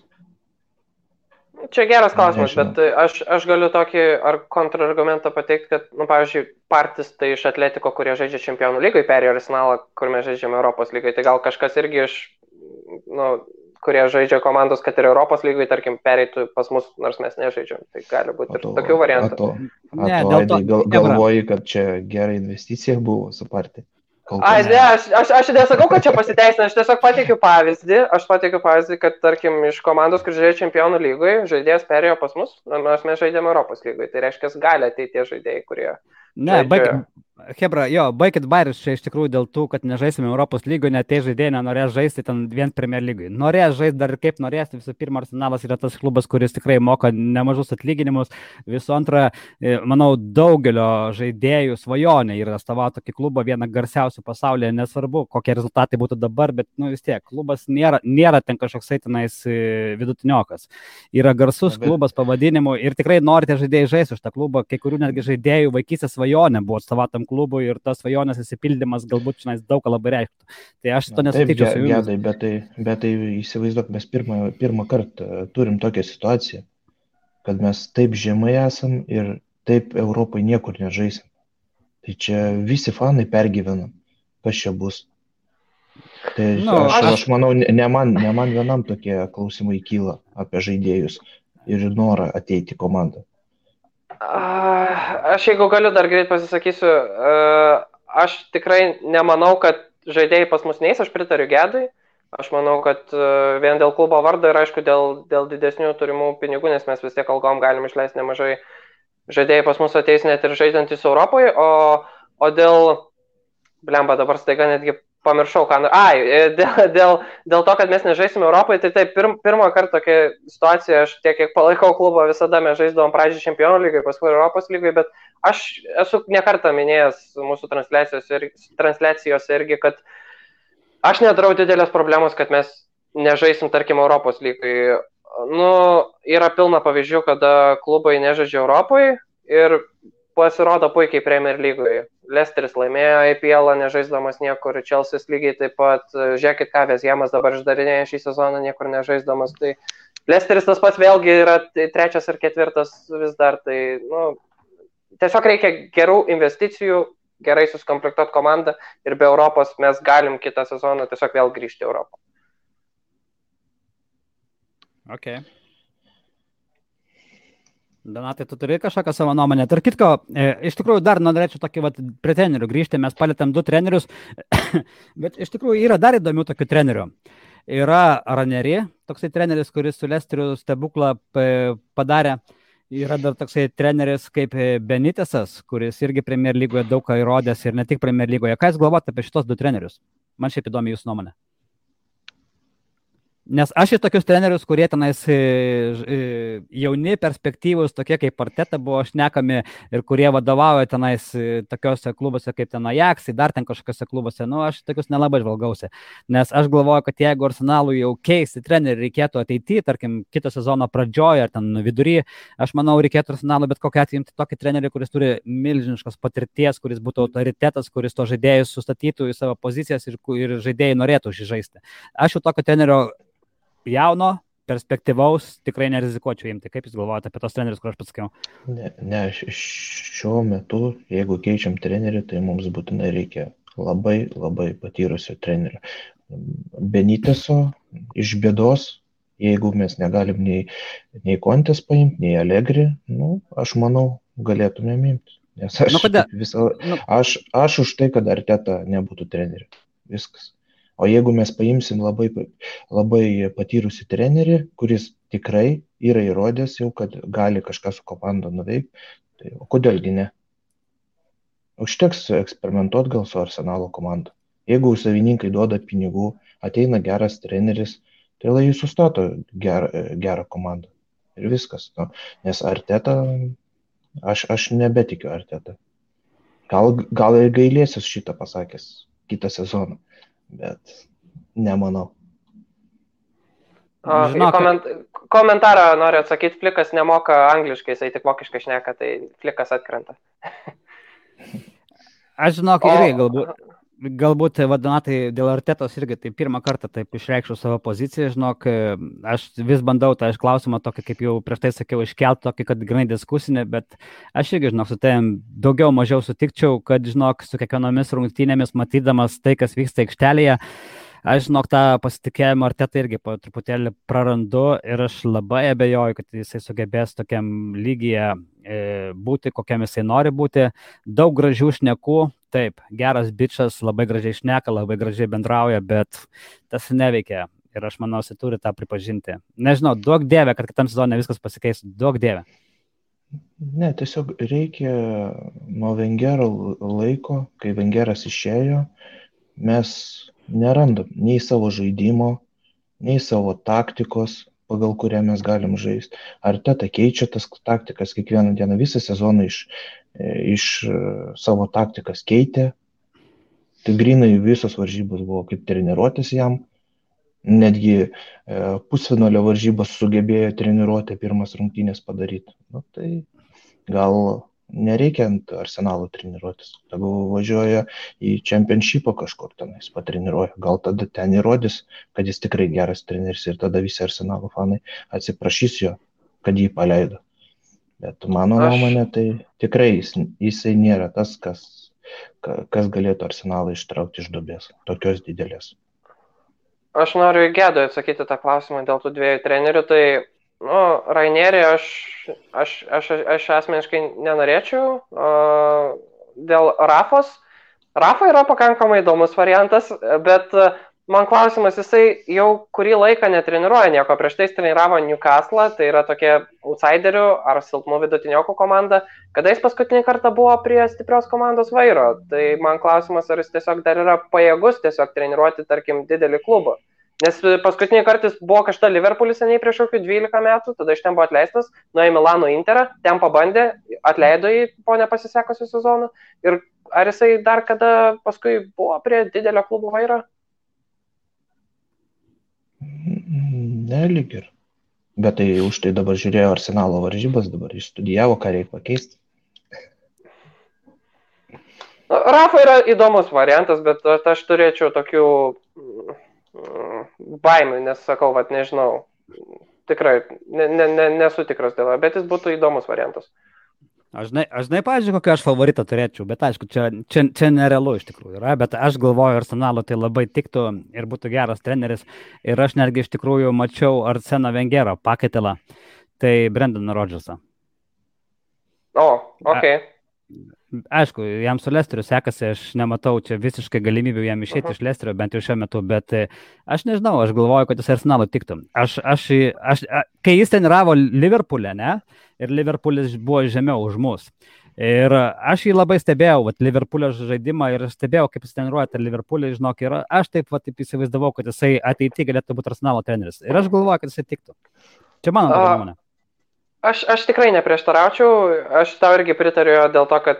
Čia geras klausimas, bet aš galiu tokį kontrargumentą pateikti, kad, pavyzdžiui, Partis tai iš Atletiko, kurie žaidžia čempionų lygoje, perėjo Arsenalą, kur mes žaidžiame Europos lygoje. Tai gal kažkas irgi iš, kurie žaidžia komandos, kad ir Europos lygoje, tarkim, pereitų pas mus, nors mes nežaidžiam. Tai gali būti ir tokių variantų. Galvoji, kad čia gera investicija buvo su Parti? Aš nesakau, kad čia pasiteisina, aš tiesiog pateikiu pavyzdį, kad, tarkim, iš komandos, kur žaidžia čempionų lygoje, žaidėjas perėjo pas mus, nors mes žaidėme Europos lygoje. Tai reiškia, gali ateiti tie žaidėjai, kurie... Ne, baikit bairius čia iš tikrųjų dėl tų, kad nežaisime Europos lygoje, net tie žaidėjai nenorės žaisti ten vien Premier lygoje. Norės žaisti dar kaip norės, visų pirma, Arsenalas yra tas klubas, kuris tikrai moka nemažus atlyginimus. Visų antra, manau, daugelio žaidėjų svajonė yra atstovauti tokį klubą, vieną garsiausių pasaulyje, nesvarbu, kokie rezultatai būtų dabar, bet vis tiek, klubas nėra ten kažkoksai tenais vidutiniokas. Yra garsus klubas pavadinimu ir tikrai norite žaidėjai žaisti už tą klubą, kai kurių netgi žaidėjų vaikystės svajonė buvo atstovatam klubui ir tas svajonės įsipildymas galbūt šiandien daug labai reikštų. Tai aš to nesutikčiau su jumis. Bet tai įsivaizduok, mes pirmą kartą turim tokią situaciją, kad mes taip žemai esam ir taip Europai niekur nežaisim. Tai čia visi fanai pergyvena, kas čia bus. Tai aš manau, ne man vienam tokie klausimai kyla apie žaidėjus ir norą ateiti į komandą. Aš jeigu galiu dar greit pasisakysiu, aš tikrai nemanau, kad žaidėjai pas mus neis, aš pritariu Gedui. Aš manau, kad vien dėl klubo vardo ir aišku dėl didesnių turimų pinigų, nes mes vis tiek algom galim išleisti nemažai, žaidėjai pas mus ateis net ir žaidžiantys Europoje, o dėl, dabar staiga netgi pamiršau, dėl to, kad mes nežaisime Europoje, tai taip, pirmą kartą tokia situacija, aš tiek, kiek palaikau klubą, visada mes žaisdavom pradžiai čempionų lygoje, paskui Europos lygoje, bet aš esu nekartą minėjęs mūsų transliacijose irgi, kad aš nedarau didelės problemos, kad mes nežaisim, tarkim, Europos lygoje. Yra pilna pavyzdžių, kada klubai nežaidžia Europoje ir pasirodo puikiai Premier lygoje. Leicesteris laimėjo IPL, nežaisdamas niekur, Chelsea's lygiai taip pat, žiūrėkit, ką Vezjemas dabar išdarinėja šį sezoną, niekur nežaisdamas, tai Leicesteris tas pats vėlgi yra 3. ar 4. vis dar, tai tiesiog reikia gerų investicijų, gerai suskomplektuoti komandą ir be Europos mes galim kitą sezoną tiesiog vėl grįžti į Europą. Okay. Donatai, tu turi kažkokią savo nuomonę. Tarp kitko, iš tikrųjų dar norėčiau tokį prie trenerių grįžti, mes palėtėm 2 trenerius, bet iš tikrųjų yra dar įdomių tokių trenerių. Yra Ranieri, toksai treneris, kuris su Leicesteriu stebuklą padarė. Yra dar toksai treneris kaip Benitesas, kuris irgi Premier lygoje daug ką įrodęs ir ne tik Premier lygoje. Ką jūs galvojate apie šitos du trenerius? Man šiaip įdomi jūsų nuomonė. Nes aš į tokius trenerius, kurie tenais jauni, perspektyvūs, tokie kaip Arteta buvo šnekami ir kurie vadovauja tenais tokiuose klubuose kaip ten Ajax, dar ten kažkokiuose klubuose, aš tokius nelabai žvalgausi. Nes aš galvoju, kad jeigu Arsenalui jau keisti trenerių reikėtų ateityje, tarkim, kito sezono pradžioje ar ten vidury, aš manau, reikėtų Arsenalui bet kokią atveju imti tokį trenerį, kuris turi milžiniškos patirties, kuris būtų autoritetas, kuris to žaidėjus sustatytų į savo pozicijas ir žaidėjai norėtų žaisti. Aš jau tokio trenerio jauno, perspektyvaus tikrai nerizikuočiau imti. Kaip jūs galvojate apie tos trenerius, kur aš pasakiau? Ne, šiuo metu, jeigu keičiam trenerį, tai mums būtinai reikia labai, labai patyrusio trenerio. Beniteso iš bėdos, jeigu mes negalim nei Kontės paimti, nei Allegri, aš manau, galėtumėm imti. Nes aš už tai, kad Arteta nebūtų treneriu. Viskas. O jeigu mes paimsim labai patyrusį trenerį, kuris tikrai yra įrodęs jau, kad gali kažką su komanda nuveikti, tai o kodėlgi ne? Užteks eksperimentuoti gal su Arsenalo komanda. Jeigu savininkai duoda pinigų, ateina geras treneris, tai lai jis sustato gerą komandą. Ir viskas. Nes Arteta, aš nebetikiu Arteta. Gal ir gailėsis šitą pasakęs kitą sezoną. Bet nemanau. Komentarą noriu atsakyti, Flikas nemoka angliškai, jisai tik vokiškai šneka, tai Flikas atkrenta. Aš irgi galbūt Donatai dėl Artetos irgi tai pirmą kartą taip išreikščiau savo poziciją, aš vis bandau tą klausimą tokį, kaip jau prieš tai sakiau, iškelti tokį, kad grinai diskusinį, bet aš irgi, su tavim daugiau mažiau sutikčiau, kad, su kiekvienomis rungtynėmis matydamas tai, kas vyksta aikštelėje, aš, tą pasitikėjimą Artetą irgi po truputėlį prarandu ir aš labai abejoju, kad jisai sugebės tokiam lygyje būti, kokiam jisai nori būti. Daug gražių šnekų, taip, geras bičas, labai gražiai šneka, labai gražiai bendrauja, bet tas neveikia ir aš manau, jisai turi tą pripažinti. Nežinau, duok dieve, kad kitam sezone viskas pasikeis, duok dieve. Ne, tiesiog reikia nuo Wengero laiko, kai Wengeras išėjo, mes nerandam nei savo žaidimo, nei savo taktikos, pagal kurią mes galim žaisti. Arteta keičia tas taktikas kiekvieną dieną, visą sezoną iš savo taktikas keitė. Tai grinai visos varžybos buvo kaip treniruotis jam. Netgi pusfinalio varžybos sugebėjo treniruotę pirmas rungtynės padaryti. Tai gal nereikia ant Arsenalo treniruotis. Tegu važiuoja į Championshipą kažkur tenais patreniruoja. Gal tada ten įrodys, kad jis tikrai geras treneris ir tada visi Arsenalo fanai atsiprašys jo, kad jį paleido. Bet mano nuomonė, tai tikrai jisai nėra tas, kas galėtų Arsenalą ištraukti iš duobės, tokios didelės. Aš noriu Gedui atsakyti tą klausimą dėl tų dviejų trenerių. Tai Rainierį aš asmeniškai nenorėčiau. Dėl Rafos. Rafa yra pakankamai įdomus variantas, bet man klausimas, jisai jau kurį laiką netreniruoja nieko. Prieš tai jis treniravo Newcastle, tai yra tokie outsiderių ar silpnų vidutiniokų komanda. Kada jis paskutinį kartą buvo prie stiprios komandos vairo? Tai man klausimas, ar jis tiesiog dar yra pajėgus tiesiog treniruoti, tarkim, didelį klubą. Nes paskutinį kartą jis buvo kažta Liverpoolis seniai prieš kokių 12 metų, tada iš ten buvo atleistas, nuėjo į Milano Interą, ten pabandė, atleido jį po nepasisekusių sezonų. Ir ar jisai dar kada paskui buvo prie didelio klubo vairo? Ne, lyg ir. Bet tai už tai dabar žiūrėjo Arsenalo varžybas, dabar išstudijavo, ką reikia pakeisti. Rafa yra įdomus variantas, bet aš turėčiau tokių baimių, nes sakau, nežinau, tikrai nesu tikras dėl, bet jis būtų įdomus variantas. Aš pavyzdžiui, kokią aš favoritą turėčiau, bet aišku, čia nerealu iš tikrųjų yra, bet aš galvoju, Arsenalo tai labai tiktų ir būtų geras treneris ir aš netgi iš tikrųjų mačiau Arseno Wengero pakaitalą, tai Brendaną Rodgersą. Ok. Aišku, jam su Lesteriu sekasi, aš nematau čia visiškai galimybių jam išėti iš Lesterio, bent jau šiuo metu, bet aš nežinau, aš galvoju, kad jis Arsenalo tiktų. Kai jis treniravo Liverpool'e, ne, ir Liverpoolis buvo žemiau už mus. Ir aš jį labai stebėjau, Liverpoolio žaidimą ir stebėjau, kaip jis treniruoja tą Liverpoolį, žinok, ir aš taip įsivaizdavau, kad jisai ateityje galėtų būti Arsenalo treneris. Ir aš galvoju, kad jisai tiktų. Čia mano nuomonė. Aš tikrai neprieštaraučiau, aš tau irgi pritariu dėl to, kad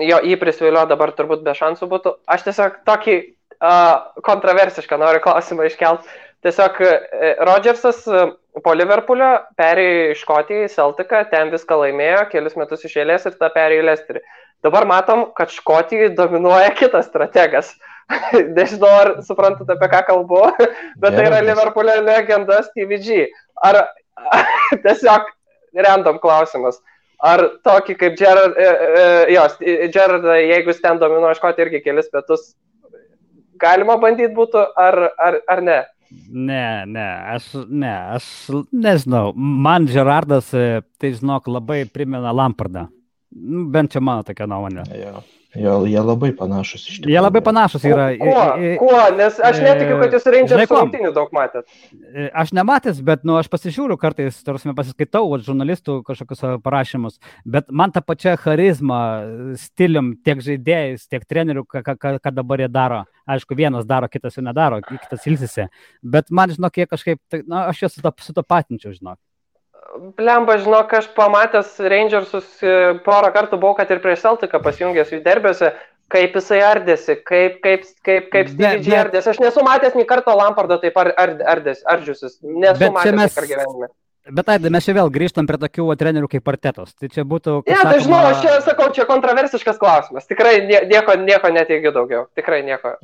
jį prisvilio dabar turbūt be šansų būtų. Aš tiesiog tokį kontroversišką noriu klausimą iškelt. Tiesiog Rodgersas po Liverpoolio perėjo į Škotiją, į Celticą, ten viską laimėjo, kelis metus iš eilės ir tą perėjo į Lesterį. Dabar matom, kad Škotijoje dominuoja kitas strategas. Nežinau, ar suprantate, apie ką kalbu, bet tai yra Liverpoolio legenda Stevie G. Ar tiesiog random klausimas. Ar tokį kaip Gerrard, jeigu jis ten dominuoja Škotiją irgi kelis metus, galima bandyti būtų, ar ne? Ne, aš nežinau. Man Gerrardas, tai žinok, labai primena Lampardą. Bent čia mano tokia nuomonė. Jie labai panašus iš tikrųjų. Jie labai panašus yra. Kuo? Nes aš netikiu, kad jūs Rangers rungtynių daug matėt. Aš nematęs, bet aš pasižiūriu kartais, pasiskaitau žurnalistų kažkokius parašymus, bet man ta pačia charizma, stilium, tiek žaidėjais, tiek trenerių, ką dabar jie daro. Aišku, vienas daro, kitas jau nedaro, kitas ilsisi. Bet man, žinok, jie kažkaip, aš juos sutapatinčiau, žinok. Blemba, žinok, aš pamatęs Rangersus porą kartų buvau, kad ir prieš Celticą pasijungęs jų derbiuose, kaip jisai ardėsi, kaip Stevie G ardėsi. Aš nesu matęs nei karto Lampardo taip ardžiusis. Nesu matęs per gyvenimą. Bet Aidai, mes čia vėl grįžtam prie tokių trenerių kaip Artetos. Tai čia būtų... Tai žinau, aš čia sakau, čia kontroversiškas klausimas. Tikrai nieko neteigiu daugiau. Tikrai nieko.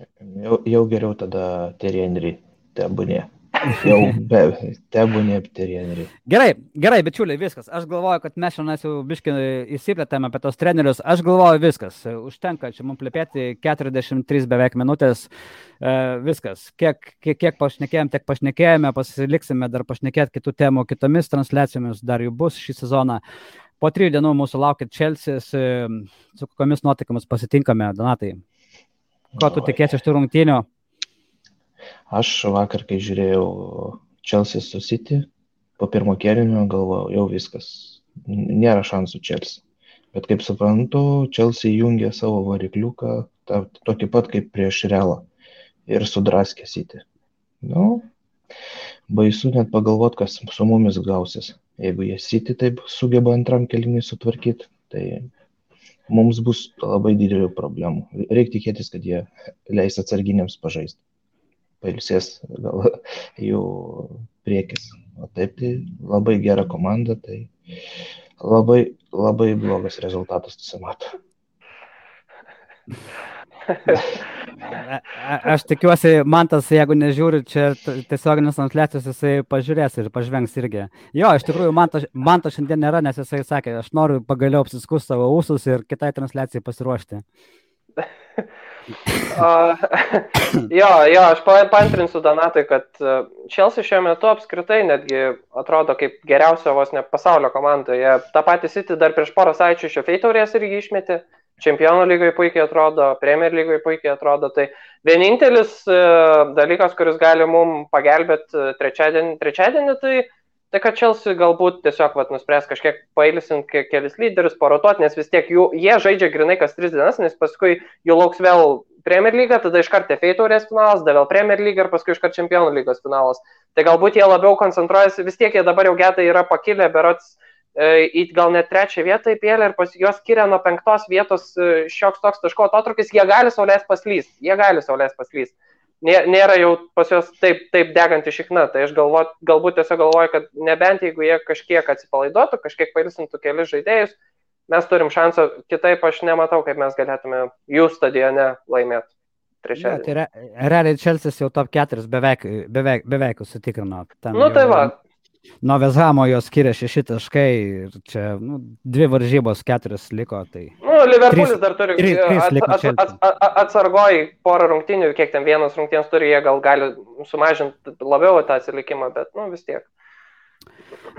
Jau geriau tada Thierry Henry tebūnė. Jau tebūnė Thierry Henry. Gerai, bičiuliai, viskas. Aš galvoju, kad mes šiandien jau biškai įsiplėtėme apie tos trenerius. Aš galvoju, viskas. Užtenka čia mums plėpėti 43 beveik minutės. Viskas. Kiek pašnekėjom, tiek pašnekėjome. Pasiliksime dar pašnekėti kitų temų, kitomis transliacijomis. Dar jų bus šį sezoną. Po 3 dienų mūsų laukia Chelsea. Su kokiamis nuotaikomis pasitinkame, Donatai? Ko tu tikėsi iš tų rungtynių? Aš vakar, kai žiūrėjau Chelsea su City, po pirmo kėlinio galvojau, jau viskas, nėra šansų Chelsea. Bet kaip suprantu, Chelsea jungė savo varikliuką, tokį pat kaip prieš Realą ir sudraskė City. Baisu net pagalvoti, kas su mumis gausis. Jeigu jie City taip sugeba antram kėlinį sutvarkyti, tai mums bus labai didelių problemų. Reikia tikėtis, kad jie leis atsarginiams pažaisti. Pailsės gal jų priekis. O taip, tai labai gera komanda, tai labai, labai blogas rezultatas susimato. Aš tikiuosi, Mantas, jeigu nežiūri čia tiesioginės transliacijos, jisai pažiūrės ir pažvengs irgi. Jo, iš tikrųjų, Mantas šiandien nėra, nes jisai sakė, aš noriu pagaliau apsiskus savo ūsus ir kitai transliacijai pasiruošti. Aš paantrinsiu Donatui, kad Chelsea šiuo metu apskritai netgi atrodo kaip geriausia vos ne pasaulio komandoje. Ta pati City dar prieš porą savaičių iš FA taurės irgi išmetė. Čempionų lygoje puikiai atrodo, Premier lygoje puikiai atrodo. Tai vienintelis dalykas, kuris gali mums pagelbėti trečiadienį, tai kad Chelsea galbūt tiesiog nuspręs kažkiek pailsint kelis lyderius, parotuoti, nes vis tiek jie žaidžia grinai kas 3 dienas, nes paskui jų lauks vėl Premier lyga, tada iškart FA taurės finalas, tada vėl Premier lyga ir paskui iškart Čempionų lygos finalas. Tai galbūt jie labiau koncentruojasi, vis tiek jie dabar jau getai yra pakilę, berods į gal net 3 vietą įpėlę ir jos skiria nuo 5 vietos šioks toks taško atotrukis, jie gali sau leist paslyst. Nėra jau pas juos taip deganti šikna, tai aš galbūt tiesiog galvoju, kad nebent jeigu jie kažkiek atsipalaiduotų, kažkiek pailsintų kelis žaidėjus, mes turim šansą, kitaip aš nematau, kaip mes galėtume jų stadione laimėti trečiadienį. Tai realiai Chelsea jau top 4 beveik užsitikrino. Tai va. Nuo Vezhamo jos skiria 6 taškai ir čia 2 varžybos 4 liko. Tai... Liverpoolis dar turi atsargoj porą rungtynių, kiek ten vienas rungtynės turi, jie gal gali sumažinti labiau tą atsilikimą, bet vis tiek.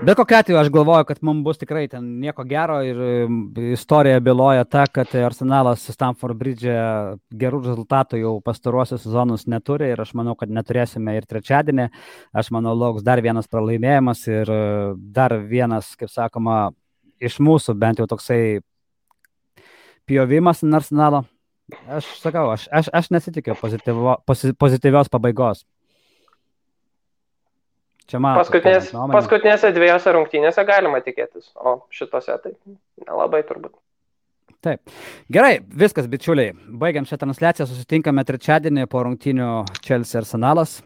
Bet kokiu atveju aš galvoju, kad mums bus tikrai ten nieko gero ir istorija byloja ta, kad Arsenalas Stamford Bridge gerų rezultatų jau pastaruosius sezonus neturi ir aš manau, kad neturėsime ir trečiadienį. Aš manau, lauks dar vienas pralaimėjimas ir dar vienas, kaip sakoma, iš mūsų bent jau toksai pjovimas Arsenalo. Aš sakau, aš nesitikiu pozityvios pabaigos. Paskutinėse 2 rungtynėse galima tikėtis, o šitose tai nelabai turbūt. Taip. Gerai, viskas, bičiuliai. Baigiam šią transliaciją, susitinkame trečiadienį po rungtynių Chelsea Arsenalas.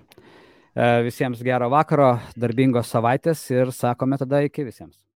Visiems gero vakaro, darbingos savaitės ir sakome tada iki visiems.